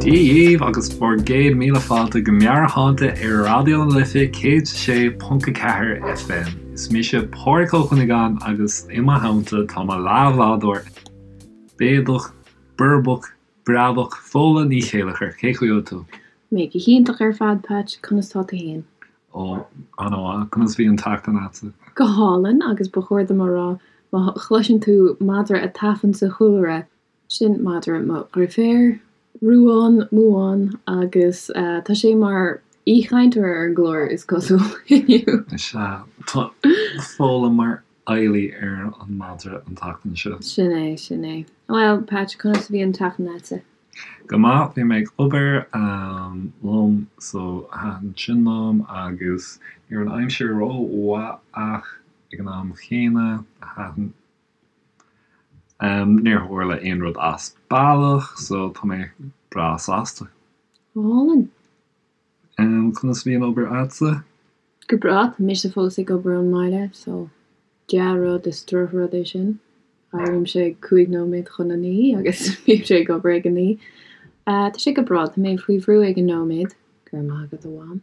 Dia dhaoibh agus bhur gcéad míle fáilte go Meabhairshláinte ar Raidió na Life 106.4 FM. Is mise Pádraig Ó Cuinneagáin agus i mo theannta tá mo leathbhádóir béadach, boirbeach, breabach, Fódhla Ní Chéilleachair. Cén chaoi a bhfuil tú? Mé go hiontach ar fad, Patch. Conas tá tú fhéin? Ó, an-mhaith. Conas bhí an tseachtain a'dsa? Go hálainn, agus ba chóir dom a rá, má chloiseann tú madra ag tafann sa chúlra, sin madra mo dheirféar, Ruán Muán, agus tá sé mar aoichainteoir ar an gclár, is cosúil, inniu. Is ea, tá Fódhla mar fheighlí ar an madra an tseachtain seo. Sin é, sin é. Bhuel, Patch, conas a bhí an tseachtain a'dsa? Go maith, bhí mé ag obair liom so thaitin sin liom agus ní raibh an aimsir ró-mhaith ach ag an am chéanna thaitin níor tharla aon rud as bealach so tá mé breá sásta. Go hálainn. Conas a bhí an obair a'dsa? Go breá, tá mise fós ag obair ón mbaile so dea-rud is drochrud é sin. Éirímse ag 5 nóiméad chun a 9 agus bímse ag obair ag a 9. Tá sé go breá, tá mé faoi bhrú ag an nóiméad, go raibh maith agat a Mham,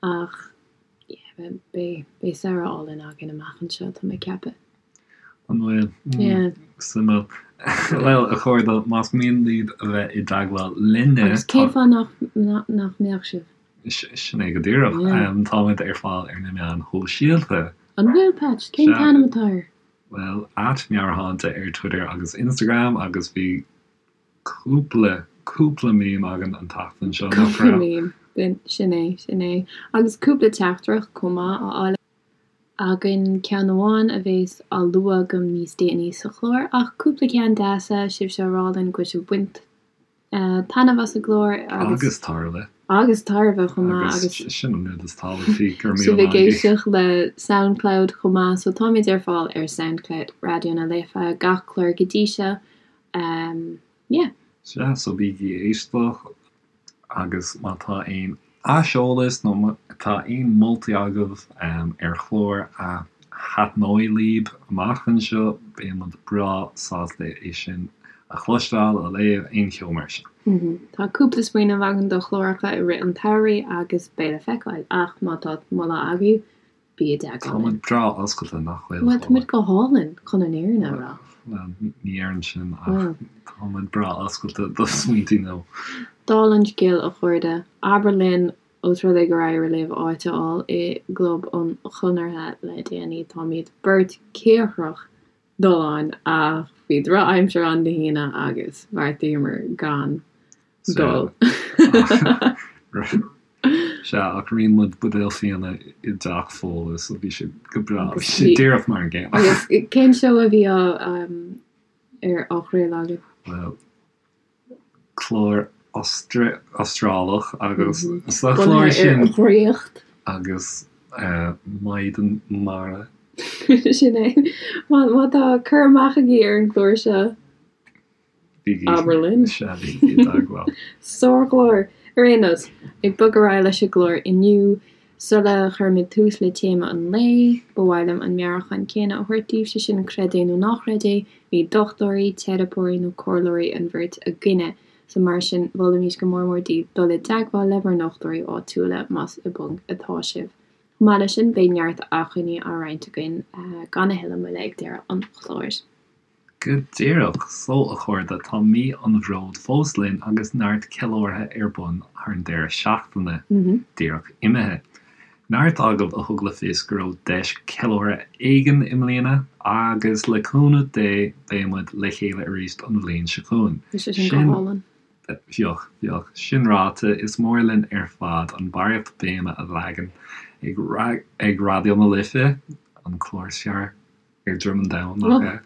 ach yeah, beidh, beidh samhradh álainn againn amach anseo, tá mé ag ceapadh. An bhfuil? Yeah. Suimiúil. Bhuel, a chairde, más mian libh a bheith i dteagmháil linne, Agus cén fáth nach, nach mbeadh sibh? Sin é go díreach. Táimid ar fáil ar na meáin shóisialta. An bhfuil, Patch? Cén t-ainm atá air? Bhuel, at Meabhairshláinte ar Twitter agus Instagram agus bhí cúpla, cúpla meme againn an tseachtain seo, nach raibh? Cúpla meme, sin é, sin é. Agus cúpla teachtaireacht chomh maith á fháil againn, ceann amháin a bhéas á lua agam níos déanaí sa chlár, ach cúpla ceann deasa, sibhse á rá linn go bhfuil sibh ag baint taitneamh as an gclár agus. Agus tairbhe. Agus tairbhe chomh maith agus. Agus sin an rud is tábhachtaí, go raibh míle maith agaibh. Sibh ag éisteacht le Soundcloud chomh maith, so táimid ar fáil ar Soundcloud Raidió na Life, gach clár go dtí seo, yeah. Sea, so bígí ag éisteacht agus má tá aon aiseolas nó má tá aon moltaí agaibh ar chlár a thaitneoidh libh amach anseo, beidh muid breá sásta é sin a chloisteáil, a léamh, aon cheo mar sin. Tá cúpla smaoineamh againn do chláracha i rith an tsamhraidh agus beidh le feiceáil, ach má tá moladh agaibh, bí i dteagmháil linn. Tá muid breá oscailte, nach bhfuil? Bhuel, tá muid go hálainn, chun an fhírinne a rá. Bhuel, ní déarfainn sin, ach tá muid breá oscailte do smaointí nua. Dála an scéil, a chairde, abair linn Ós rud é gur éirigh libh áit a fháil i gClub an Chonartha le déanaí, táimid beirt cíocrach dul ann ach bhí drochaimsir ann Dé hAoine agus bheartaíomar gan dul. Sea, ach rinne muid buidéal fíona i dteach Fódhla so bhí sé go breá, bhí sé díreach mar an gcéanna. Agus cén seó a bhí á ar á chraoladh agaibh? Bhuel, clár Astrálach agus sa chlár sin. Bunaithe ar dhraíocht. Agus maighdean mara. Sin é. Má tá cur amach agaibh ar an gclár seo, abair linn. Sea, bígí i dteagmháil. Sárchlár! Ar aon nós, ag bogadh ar aghaidh leis an gclár inniu, Sula gcuirimid tús le téama an lae, ba mhaith liom an meabhrúchán céanna a thabhairt daoibh, sé sin, creid é nó ná creid é, ní dochtúirí, teiripeoirí nó comhairleoirí an bheirt againne, so mar sin, mholfaimis go mór mór daoibh dul i dteagmháil le bhur ndochtúirí áitiúla más i bponc atá sibh. Chomh maith leis sin, beidh neart acmhainní á roinnt againn gan a thuilleadh moille ag deireadh an chláir. Go díreach so, a chairde, tá mí an Bhróid fós linn agus neart ceiliúrtha ar bun thar an deireadh seachtaine díreach imithe. Neart agaibh a thug le fios go raibh deis ceiliúrtha éigin i mbliana agus le cúnamh Dé beidh muid le chéile arís an bhliain seo chugainn. Bhí sé sin go hálainn. Bheadh, bheadh. Sin ráite, is mór linn ar fad an barraíocht béime a leagan ag Raidió na Life, an clár is fearr. ar droim an domhain, nach ea?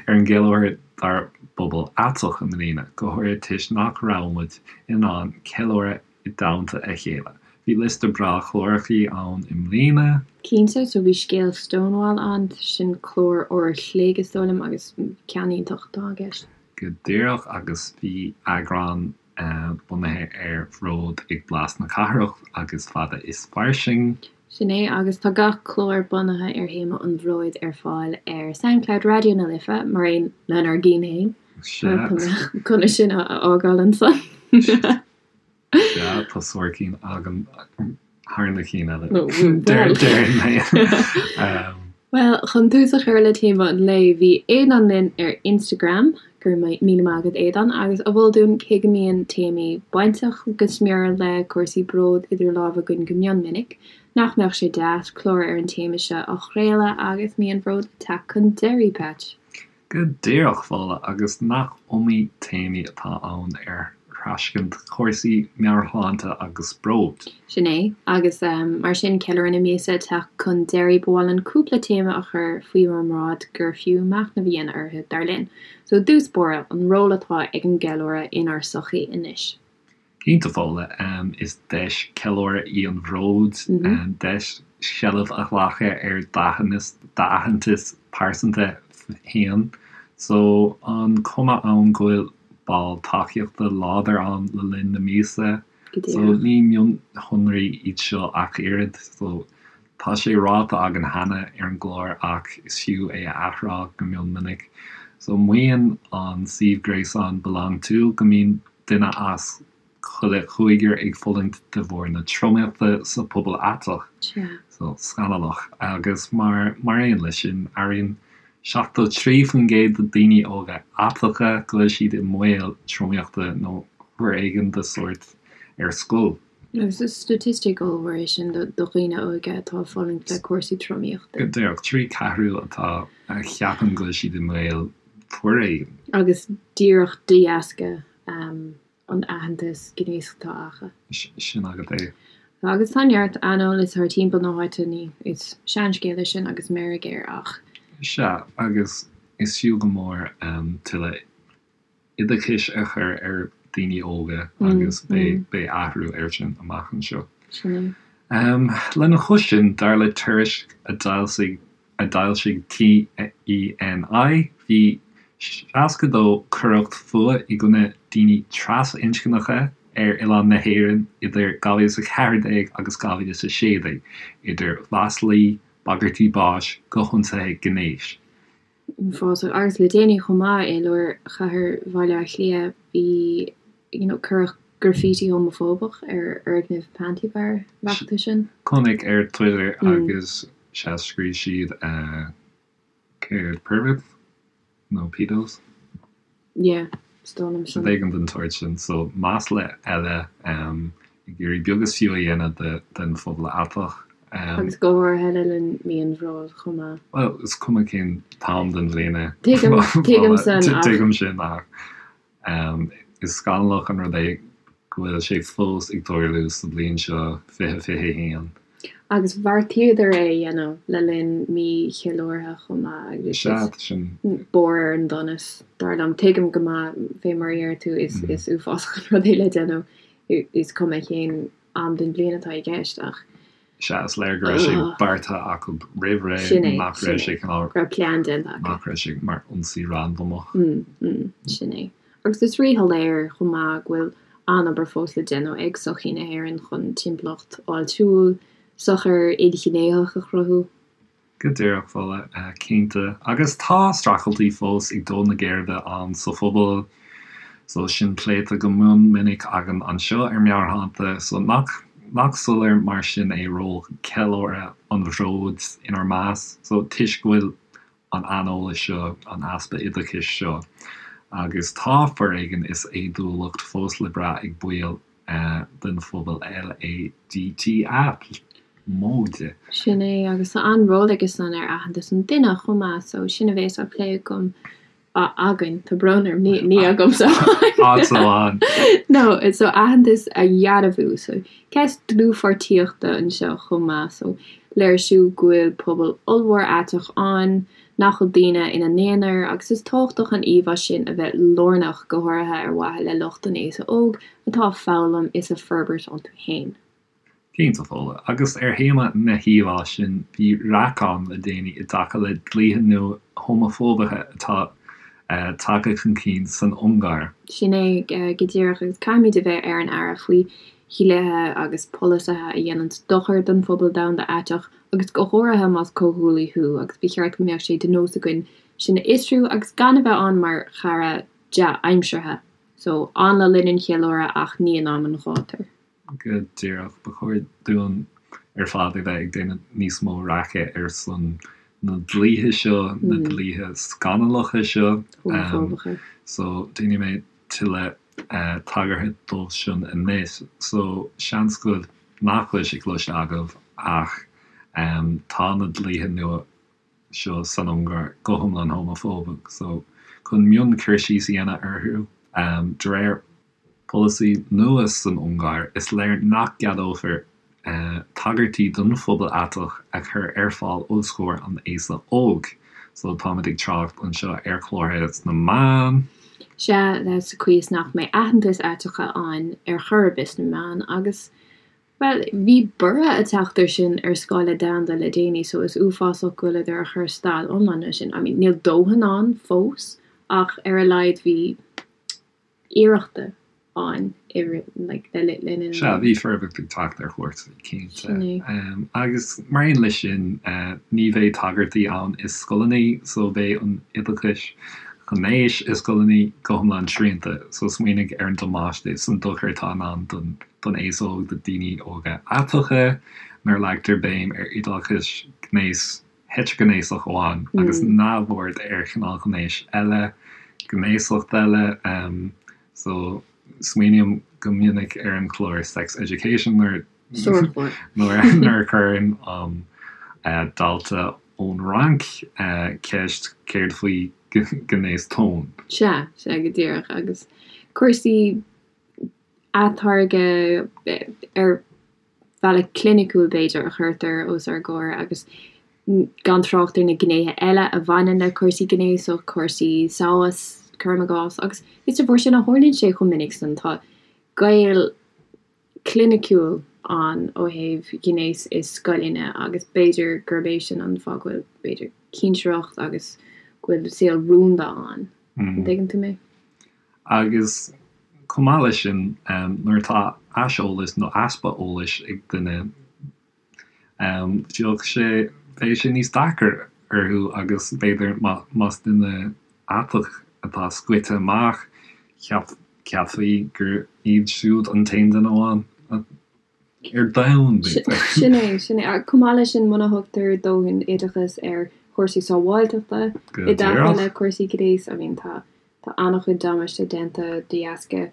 Ar an gceiliúradh dár bpobal aiteach i mbliana, go háirithe toisc nach raibh muid in ann ceiliúradh i dteannta a chéile. Bhí liosta breá clárachaí ann i mbliana. Cinnte, so bhí Scéal Stonewall ann, sin clár uair a chloig is dóigh liom agus ceann iontach atá i gceist. Go díreach, agus bhí eagrán bunaithe ar bhród ag Blas na Cathrach agus Fada is Fairsing. Sin é, agus tá gach clár bunaithe ar théama an bhróid ar fáil ar Soundcloud Raidió na Life, mar aon lenár gcinn féin. Sea. Tá mé chun é sin a fhágáil ansan. Sea, tá sár cinn agam thar na cinn eile. Déarfainn mé. Bhuel, chun tús a chur le téama an lae, bhí Aodán linn ar Instagram, go raibh míle maith agat Aodán, agus a mhol dúinn cé go mbíonn téamaí bainteach go smior le cúrsaí bróid idir lámha againn go mion minic, nach mbeadh sé deas clár ar an téama seo a chraoladh agus mí an bhróid ag teacht chun deiridh, Patch? Go díreach, Fódhla, agus nach iomaí téamaí atá ann ar thraschaint cúrsaí meabhairshláinte agus bróid. Sin é, agus mar sin, ceiliúradh na míosa ag teacht chun deiridh, ba mhaith linn cúpla téama a chur faoi bhur mbráid gur fiú machnamh a dhéanamh orthu, dar linn. So, i dtús báire, an ról atá ag an gceiliúradh inár sochaí anois. Cinnte, Fódhla, is deis ceiliúradh í an bhróid, deis seilbh a ghlacadh ar d'aitheantas pearsanta féin. So, an cuma ann go bhfuil ball tacaíochta láidir ann le linn na míosa. So, ní mionshonraí iad seo ach oiread. So, tá sé ráite againn cheana ar an gclár ach is fiú é a athrá go mion minic. So, maíonn an suíomh gréasáin BelongTo go mbíonn duine as chuile chúigear ag fulaingt de bharr na tromaíochta sa phobal aiteach. So, scannalach. Agus mar mar aon leis sin, airíonn 73% de daoine óga aiteacha go bhfuil siad i mbaol tromaíochta nó foréigean de sórt ar scoil. Agus is staitistic ollmhór é sin do dhaoine óga atá ag fulaingt le cúrsaí tromaíochta. Go díreach, 3/4 atá a cheapann go bhfuil siad i mbaol foréigin. Agus díreach de dheasca an aitheantas gnéasach atá acu. Sin agat é. Agus tá neart aineolas thar timpeall na háite, ní, is seanscéal é sin agus meirg air ach. Sea, agus is fiú go mór tuilleadh oideachais a chur ar daoine óga agus beidh athrú air sin amach anseo. Sin é. Lena chois sin, dar le tuairisc a d'fhoilsigh a d'fhoilsigh TENI, bhí 62 coireacht fuath i gcoinne daoine trasinscneacha ar oileán na hÉireann idir 2014 agus 2016, idir mhaslaí, bagairtí báis go hionsaithe gnéis. Uafásach. Agus le déanaí chomh maith, i lár chathair Bhaile Átha Cliath, bhí, you know, cuireadh graffiti homafóbach ar fhoirgneamh Panti Bar, an bhfaca tú sin? Chonaic ar Twitter agus sea scríobh siad céard perverts nó pedos? Yeah, is dóigh liom sin. Rud éigin den tsórt sin. So masla eile ag iarraidh beag is fiú a dhéanamh den phobal aiteach. Agus go háirithe le linn mí an bhróid chomh maith. Bhuel, is cuma cén t-am den bhliain é. Tuigim, tuigim san ach. Tuigim sin ach is scannalach an rud é go bhfuil sé fós ag tarlú sa bhliain seo 2021. Agus bheartaíodar é a dhéanamh le linn mí cheiliúrtha chomh maith agus Sea, tá sin. barr ar an donas, dar liom. Tuigim go maith, fé mar a deir tú, is uafásach an rud é le déanamh, is cuma cén am den bhliain atá i gceist ach. Sea, is léir go raibh sé beartaithe acu roimh ré, Sin é, nach raibh sé cineál. Go raibh plean déanta acu. Nach raibh sé mar ionsaí randamach. Sin é. Agus is ríshoiléir chomh maith go bhfuil an-obair fós le déanamh ag sochaí na hÉireann chun timpeallacht fháiltiúil, sochair, ilghnéitheach a chruthú. Go díreach, Fódhla, cinnte. Agus tá streachailtí fós ag dó na geirbe ann sa phobal, so sin pléite go mion minic againn anseo ar Meabhairshláinte, so nach nach soiléir mar sin é ról ceiliúradh an bhróid inár measc, so toisc go bhfuil an aineolas seo, an easpa oideachais seo, agus tá foréigean is éadúlacht fós le brath ag baill den phobal LADTA móide. Sin é, agus tá an-ról aige san ar aitheantas an duine chomh maith, so sin a bhéas á plé agam, againn, tá brón orm, ní, ní agamsa Áit amháin. No, so aitheantas a dhearbhú, so ceist dlúthpháirtíochta anseo chomh maith, so léirsiú go bhfuil pobal ollmhór aiteach ann, nach bhfuil daoine ina n-aonar, agus is tábhachtach an íomhá sin a bheith lárnach, go háirithe ar mhaithe le lucht an aosa óg atá ag foghlaim is ag forbairt iontu féin. Cinnte, Fódhla. Agus ar théama na híomhá sin, bhí raic ann le déanaí i dtaca le dlíthe nua homafóbacha atá tagtha chun cinn san Ungáir. Sin é go díreach, agus caithfimid a bheith ar an aire faoi dhlíthe agus polasaithe a dhéananns dochar don phobal domhanda aiteach, agus go háirithe más comhghuaillí thú, agus ba cheart go mbeadh sé de nós againn sin a fhiosrú agus gan a bheith ann mar chara dea-aimseartha. So, ann le linn an cheiliúradh ach ní in am an ghátair. Go díreach. Ba chóir dúinn ar fad a bheith ag déanamh níos mó raice ar son na dlíthe seo, na dlíthe scannalacha seo. Homafóbacha. So, déanfaidh mé tuilleadh tagartha dóibh sin anois. So, seans go nach bhfuil sé cloiste agaibh ach tá na dlíthe nua seo san Ungáir go hiomlán homafóbach. So, chun mion cur síos a dhéanamh orthu, de réir polasaí nua san Ungáir, is léir nach gceadófar tagairtí don phobal aiteach a chur ar fáil os comhair an aosa óig. So, táimid ag trácht anseo ar chlártha sna meáin. Sea, sa chaoi is nach mbeidh aitheantas aiteacha ann ar chor ar bith sna meáin agus, bhuel, bhí borradh ag teacht ar sin ar scála domhanda le déanaí so is uafásach go bhfuileadar a chur stad iomlán leis sin. I mean, níl dóthain ann fós ach ar a laghad bhí iarrachta ann i rith, like, le le linn an. Sea, bhí forbairt ag teacht ar chúrsaí, cinnte. Sin é. Agus mar aon leis sin, ní bheidh tagairtí ann i scoileanna, so beidh an oideachais ghnéis i scoileanna go hiomlán srianta. So smaoinigh ar an damáiste is an dochar atá i ndán don don aos óg, do daoine óga aiteacha, nuair a leagtar béim ar oideachas gnéis heitrighnéasach amháin agus neamhaird ar chineál gnéis eile, gnéasacht eile. So, smaoiním go minic ar an chlár Sex Education nuair nuair a chuireann an dalta ón Fhrainc ceist céard faoi ghnéas tóin. Sea, sea, go díreach. Agus cúrsaí atáirgeadh ar bhealach cliniciúil, b'fhéidir, a chuirtear os ár gcomhair agus gan trácht ar na gnéithe eile a bhaineann le cúrsaí gnéasach, cúrsaí samhas, cuirim i gcás, agus is de bharr sin a tharlaíonn sé chomh minic san. Tá gaol cliniciúil ann ó thaobh ghnéas i scoileanna agus b'fhéidir gurb é sin an fáth go bhfuil, b'fhéidir, cinsireacht agus go bhfuil saol rúnda ann. An dtuigeann tú mé? Agus chomh maith leis sin, nuair atá aiseolas nó easpa eolais ag duine, bheadh sé, bheadh sé níos deacair orthu agus b'fhéidir más duine aiteach atá scoite amach, cheapfaí gur iad siúd an t-aon duine amháin ar domhan, b'fhéidir. Sin é, sin é. Chomh maith leis sin, muna thugtar dóthain oideachas ar chúrsaí sábháilteachta i dtaca le cúrsaí gnéis, I mean, tá tá an-chuid damáiste déanta de dheasca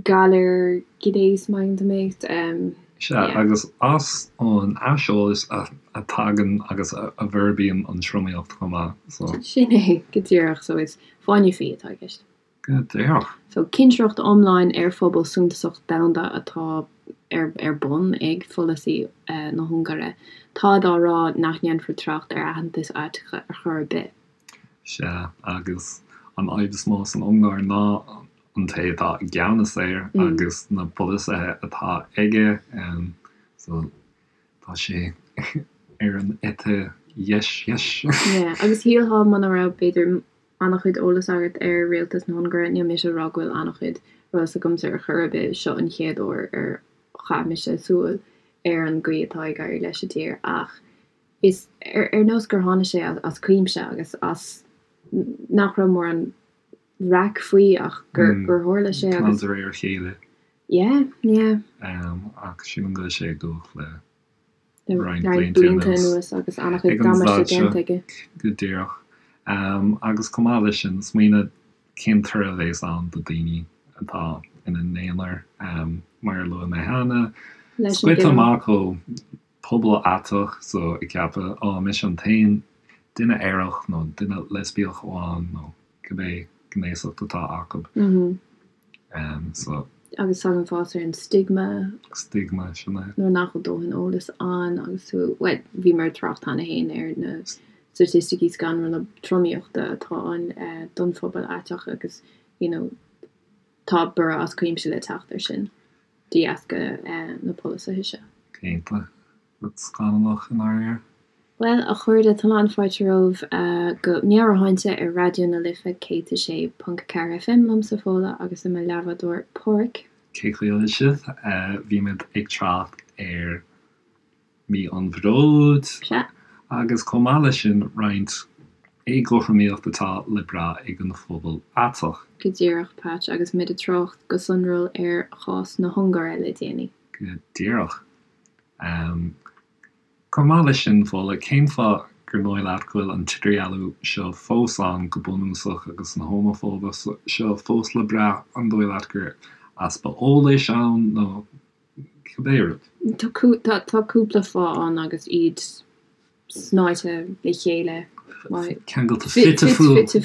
galar gnéis, má thuigeann tú mé. Sea, agus as an aiseolas a tagann agus a bhforbraíonn an tromaíocht chomh maith, so. Sin é, go díreach. So is fáinne fí atá i gceist. Go díreach. So, cinsireacht iomlán ar phobal suntasach domhanda atá ar ar bun ag pholasaí na hUngáire. Táid á rá nach ndéanfar trácht ar aitheantas aiteacha ar chor ar bith. Sea, agus an fhadhb is mó san Ungáir ná an té atá i gceannas air agus na polasaithe atá aige. So, tá sé ar an eite dheis dheis. Yeah, agus shílfeá muna raibh, b'fhéidir, an-chuid eolas agat ar rialtas na hUngáire, níl mise ag rá go bhfuil an-chuid eolas agamsa ar chor ar bith, seo an chéad uair ar chaith mise súil ar an gcaoi atá ag éirí leis an dtír ach is ar nós gur tháinig sé as cuimse agus as nach raibh mórán raic faoi ach gur gur tharla sé agus. De réir a chéile. Yeah, yeah. Ach sílim go bhfuil sé ag dul le roinnt blianta anuas agus an-chuid damáiste déanta aige. Go díreach. Agus chomh maith leis sin, smaoineamh cén toradh a bheas ann do daoine atá ina n-aonar, mar a luaigh mé cheana, scoite amach ó pobal aiteach, so ag ceapadh, á, mise an t-aon duine aerach nó duine leispiach amháin nó cibé gnéasacht atá acu. So. Agus tagann fás ar an stigma. Stigma, sin é. Nuair nach bhfuil dóthain eolais ann agus tú, bhuel, bhíomar ag trácht cheana féin ar na staitisticí scanrúla tromaíochta atá ann don phobal aiteach agus, you know, tá borradh as cuimse le teacht ar sin de dheasca na polasaithe seo. Cinnte. Rud scannalach i ndáiríre. Bhuel, a chairde, tá an-fháilte romhaibh go Meabhairshláinte ar Raidió na Life 106.4 FM liomsa Fódhla agus le mo leathbhádóir Páraic. Cén chaoi a bhfuil sibh? Bhí muid ag trácht ar Mí an Bhróid Sea. agus chomh maith leis sin roinnt. éagothromaíocht atá le brath ag an phobal aiteach. Go díreach, Patch, agus muid ag trácht go sonrúil ar chás na hUngáire le déanaí. Go díreach. Chomh maith leis sin, Fódhla, cén fáth gur dóigh leat go bhfuil an t-idirdhealú seo fós ann go bunúsach agus an homafóibe seo fós le brath? An dóigh leat gur easpa eolais ann nó cibé rud? Tá cúpla fáth ann agus iad snáite le chéile. Ceangailte fite fuaite.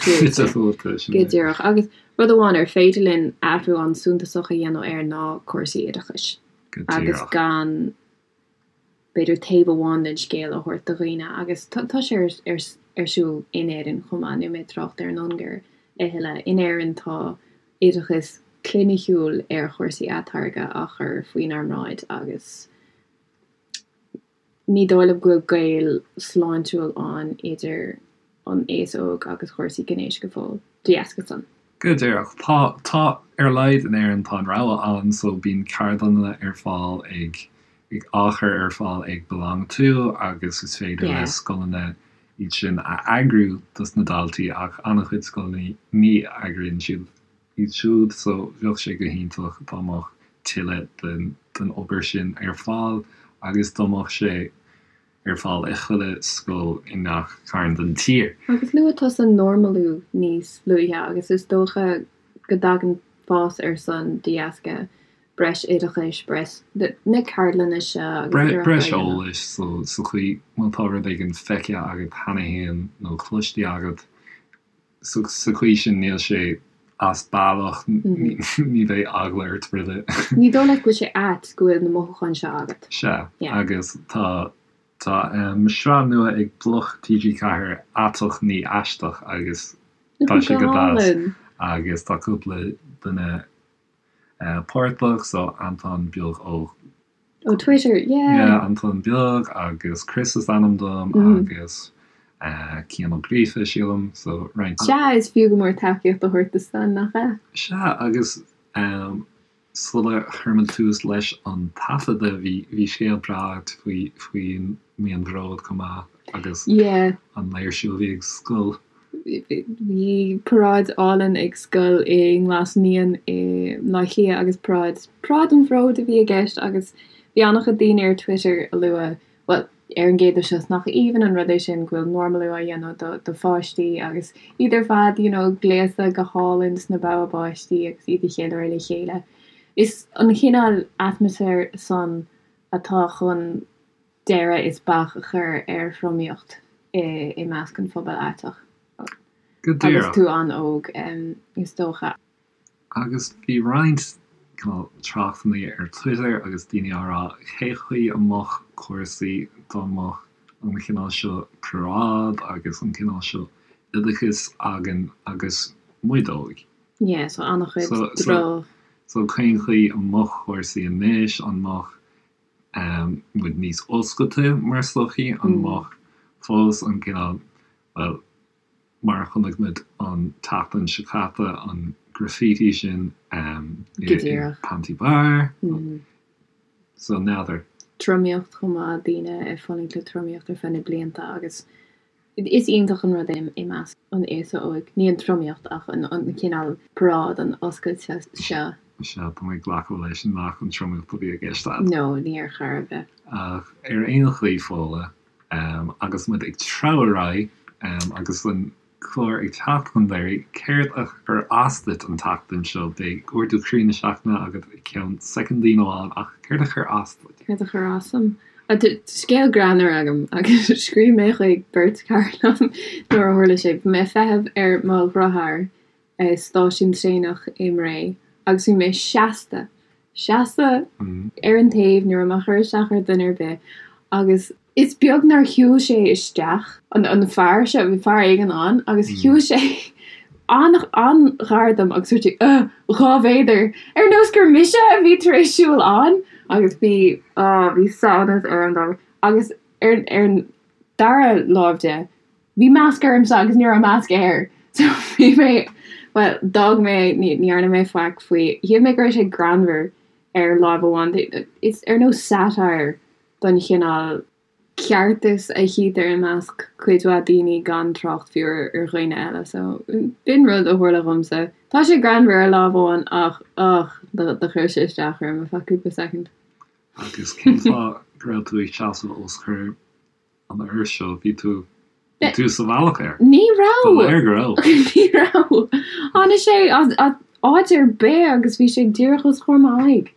Go díreach. Agus rud amháin ar féidir linn athrú an-suntasach a dhéanamh air ná cúrsaí oideachais. Go díreach. Agus gan, b'fhéidir, taobh amháin den scéal a thabhairt do dhaoine. Agus tá sé ar siúl in Éirinn chomh maith, níl mé ag trácht ar an Ungáir a thuilleadh. In Éirinn tá oideachas cliniciúil ar chúrsaí atáirgeadh á chur faoinár mbráid agus Ní dóigh liom go bhfuil gaol sláintiúil ann idir an aos óg agus chúrsaí gnéis go fóill, de dheasca san. Go díreach. Tá, tá, ar a laghad in Éirinn tá an rogha ann so bíonn ceardlanna ar fáil ag, ag, á chur ar fáil ag BeLonG To agus is féidir le scoileanna iad sin a eagrú dos na daltaí ach an-chuid scoileanna ní eagraíonn siad iad siúd so bheadh sé go hiontach dá mbeadh tuilleadh den den obair sin ar fáil agus dá mbeadh sé ar fáil i chuile scoil i ngach cearn den tír. Agus luaigh tusa normalú níos luaithe agus is dócha go dtagann fás air san de dheasca breis oideachais, breis na ceardlanna seo agus iarrachtaí Breis eolais so sa chaoi má tá rud éigin feicthe agat cheana féin nó cloiste agat Sa chaoi sin níl sé as bealach, ní bheidh eagla ort roimhe. Ní dóigh leat go bhfuil sé ait go bhfuil na mothúcháin seo agat. Sea, agus tá tá sraith nua ag Bloc TG4, Aiteach Ní Aisteach, agus tá sé go deas agus tá cúpla duine páirteach, so Anton Beag ó. Ó Twitter, yeah! Yeah, Anton Beag agus Chris is ainm dom agus Cian Ó Gríofa, sílim, so roinnt. Sea, is fiú go mór tacaíocht a thabhairt do san, nach ea? Sea, agus sula chuir muid tús leis an taifeadadh, bhí bhí scéal breá agat faoi faoin Mí an Bhróid chomh maith agus Yeah. an léirsiú a bhí ag scoil. Bhí paráid álainn ag scoil i nGlas Naíon i mBleá Cliath agus paráid, Paráid an Bhróid a bhí i gceist agus bhí an-chuid daoine ar Twitter a lua, bhuel, ar an gcéad dul síos, nach aoibhinn an rud é sin go bhfuil normalú á dhéanamh do do pháistí agus iad ar fad, you know, gléasta go hálainn sna bogha báistí agus iad ag ceiliúradh le chéile. Is an chineál atmaisféir san atá chun deireadh is bac a chur ar thromaíocht i measc an phobail aiteach Go agus díreach. tú an-óg, is dócha. Agus bhí roinnt cineál tráchtanna ar Twitter agus daoine á rá cé chaoi a mbeadh cúrsaí dá mbeadh an chineál seo paráid agus an cineál seo oideachais againn agus muid óg. Yeah, so an-chuid droch. So cén chaoi a mbeadh cúrsaí anois, an mbeadh muid níos oscailte mar sochaí, an mbeadh fós an cineál, bhuel, mar a chonaic muid an tseachtain seo caite, an graffiti sin i Panti Bar, so n'fheadar. Tromaíocht chomh maith, daoine ag fulaingt le tromaíocht ar feadh na blianta agus Is iontach an rud é i measc an aosa óig, ní an tromaíocht ach an cineál paráid, an oscailte seo. Sea, tá mé ag glacadh leis nach an tromaíocht a bhí i gceist agat. No, ní ar chor ar bith. Ach ar aon chaoi, Fódhla, agus muid ag treabhadh ar aghaidh agus an clár ag teacht chun deiridh, céard a chuir as duit an tseachtain seo? Beidh ardú croí na seachtaine agat i gceann soicindín amháin, ach céard a chuir as duit? Céard a chuir as dom? Tá scéal greannmhar agam agus scríobh mé chuig beirt chara liom nuair a tharla sé. Bhí mé ag feitheamh ar mo dheartháir i stáisiún traenach i mBré agus bhí mé seasta, seasta ar an taobh, ní raibh mé ag cur isteach ar dhuine ar bith agus is beag nár shiúil sé isteach, an fear seo, bhí fear éigin ann agus shiúil sé an-ghar dom agus dúirt sé, Ugh, 2 mhéadar! Ar nós gur mise a bhí tar éis siúl ann! Agus bhí, á, bhí samhnas orm dá bharr. Agus ar, ar an dara láimh de, bhí masc ormsa agus ní raibh masc air. So bhí mé, bhuel, d'fhág mé, ní, ní dhearna mé faic faoi. Shíl mé go raibh sé greannmhar ar láimh amháin. Is ar nós satire don chineál. ceartas a chítear i measc cuid mhaith daoine gan trácht fiú ar dhaoine eile. So, b'in rud a tharla dhomsa. Tá sé greannmhar ar lámh amháin ach, ugh, do chuir sé isteach orm ar feadh cúpla soicind. Agus cén fáth go raibh tú ag seasamh os comhair an fhir seo? Bhí tú, bhí tú sa bhealach air. Ní raibh! Ba léir go raibh. Ní raibh! Tháinig sé as áit ar bith agus bhí sé díreach os comhair m'aghaidh.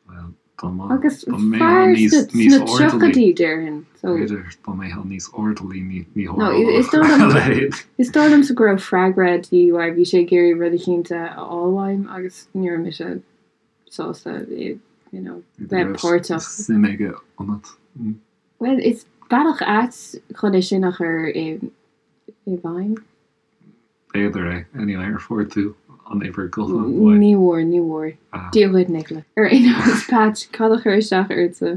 Bhuel, dá mba, Agus dá mbeifeá fear níos, sna níos sna airdeallaí, tríochaidí, déarfainn. So. b'fhéidir, dá mbeifeá níos airdeallaí ní, ní No, is tharlódh dóigh a liom, leithéid. is dóigh liomsa go raibh freagra de dhíth uaidh, bhí sé ag iarraidh rud eicínt a fháil uaim agus ní raibh mise sásta, you know, bheith páirteach. Suim aige ionat. Bhuel, is bealach ait chun é sin a chur i bhfeidhm. B'fhéidir é. Anyway, ar fuair tú an uimhir gutháin uaidh? Ní bhfuair, ní bhfuair. Dia dhuit, Nicola. Ar aon nós, Patch, cad a chuir isteach ortsa?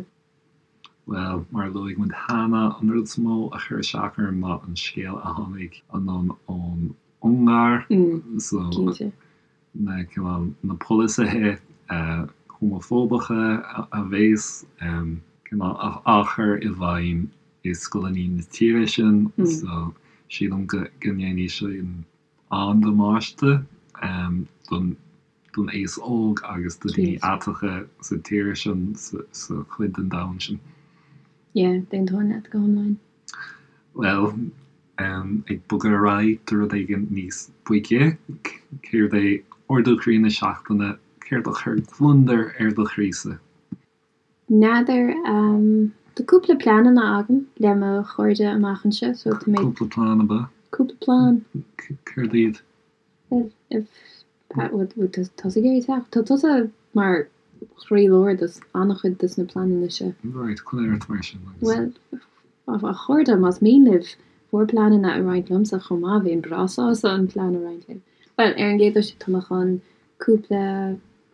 Bhuel, mar a luaigh muid cheana, an rud is mó a chuir isteach orm ná an scéal a tháinig anonn ón Ungáir. So, Cinnte. na cineál na polasaithe homafóbacha a bhéas cineál á chur i bhfeidhm i scoileanna na tíre sin so sílim go ndéanfaidh sin an-damáiste don don aos óg agus do daoine aiteacha sa tír sin sa chuid den domhan sin. Yeah, d'aontóinn leat go hiomlán. Bhuel, ag bogadh ar aghaidh do rud éigin níos boige, céard é ardú croí na seachtaine, céard a chuir gliondar ar do chroísa? N'fheadar. Tá cúpla pleananna agam le mo chairde amach anseo, so tá mé. Cúpla plean, ab ea? Cúpla plean. Céard iad? Bhuel, bhfuil tusa ag iarraidh teacht? Tá tusa mar chroílár de an-chuid de na pleananna seo. Right, coinnigh ort mar sin agus. Bhuel, a chairde, más mian libh bhur bpleananna a roinnt liomsa chomh maith, bheinn breá sásta an plean a roinnt libh. Bhuel, ar an gcéad dul síos, tá mé chun cúpla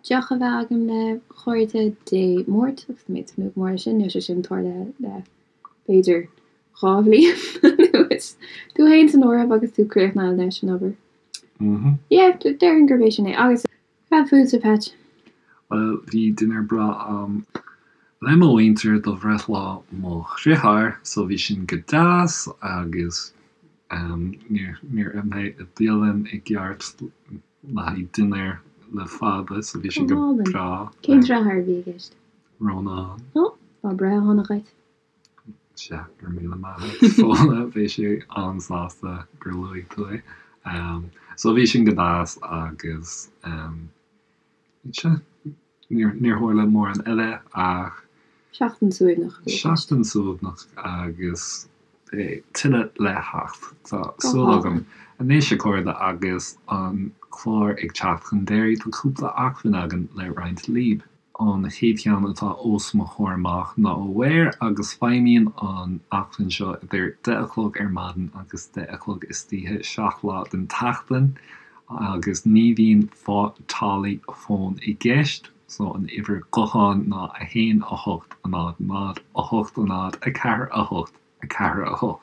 deoch a bheith agam le cairde Dé Máirt agus tá mé ag tnúth go mór leis sin, níl sé sin tarlaithe le b'fhéidir 2 bhliain anuas. Tú féin san áireamh agus tú críochnaithe leis an obair. Yeah, déarfainn gurb é sin é. Agus cad fútsa, Patch? Bhuel, bhí dinnéar breá a'm le mo mhuintir do bhreithlá mo dhriotháir, so bhí sin go deas agus níor níor ith mé i bialann i gceart le haghaidh dinnéar le fada, so bhí sé Go go hálainn. breá. Cén deartháir a bhí i gceist? Rónán. Ó, lá breithe shona dhuit. Sea, go raibh míle maith agat, Fódhla, beidh sé an-sásta gur luaigh tú é. So bhí sin go deas agus sea, níor tharla mórán eile ach. Seachtain suaimhneach a bhí i gceist. Seachtain suaimhneach agus beidh tuilleadh le theacht, tá súil agam. Anois, a chairde, agus an clár ag teacht chun deiridh, tá cúpla acmhainn againn le roinnt libh. An chéad cheann atá os mo chomhair amach ná Aware agus feidhmíonn an acmhainn seo idir 10 a chlog ar maidin agus 10 a chlog istoíche 7 lá den tseachtain agus ní bhíonn táillí fóin i gceist so an uimhir gutháin ná 1 8 0 0 8 0 4 8 4, 8.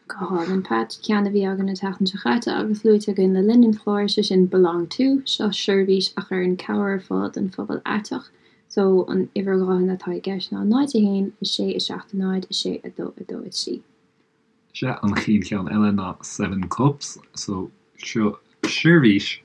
Go hálainn, Pat. Ceann a bhí againn an tseachtain seo chaite agus luaite againn le linn an chláir, sé sin Belong To. Seo seirbhís a chuireann cabhair ar fáil don phobal aiteach. So, an uimhir ghutháin atá i gceist ná 0, 1, 6, 7, 0, 6, 2, 2, 3. Sea, an chéad cheann eile ná Seven Cups. So, seo seirbhís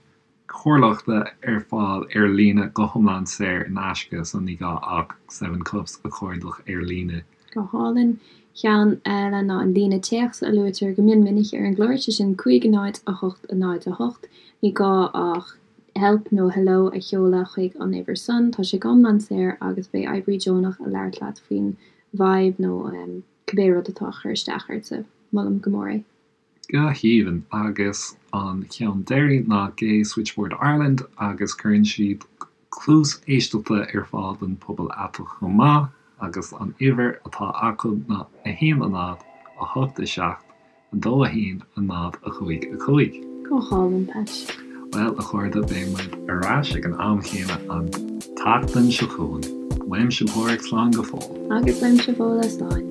comhairleachta ar fáil ar líne go hiomlán saor in aisce so ní gá ach Seven Cups a chuardach ar líne. Go hálainn. Ceann eile ná an líne téacs a luaitear go mion minic ar an gclár, sé sin 5 0 8 0 8. Ní gá ach help nó hello a sheoladh chuig an uimhir san. Tá sé go hiomlán saor agus beidh oibrí deonach ag labhairt leat faoin bhfadhb nó cibé rud atá ag cur isteach ortsa. Molaim go mór é. Go haoibhinn. Agus an ceann deiridh ná Gay Switchboard Ireland agus cuireann siad cluas éisteachta ar fáil don phobal aiteach chomh maith agus an uimhir atá acu ná 1 0 8 7 2 1 0 5 5. Go hálainn, Patch. Bhuel, a chairde, beidh muid ar ais ag an am chéanna an tseachtain seo chugainn. Uaimse Páraic, slán go fóill. Agus uaimse Fódhla, slán.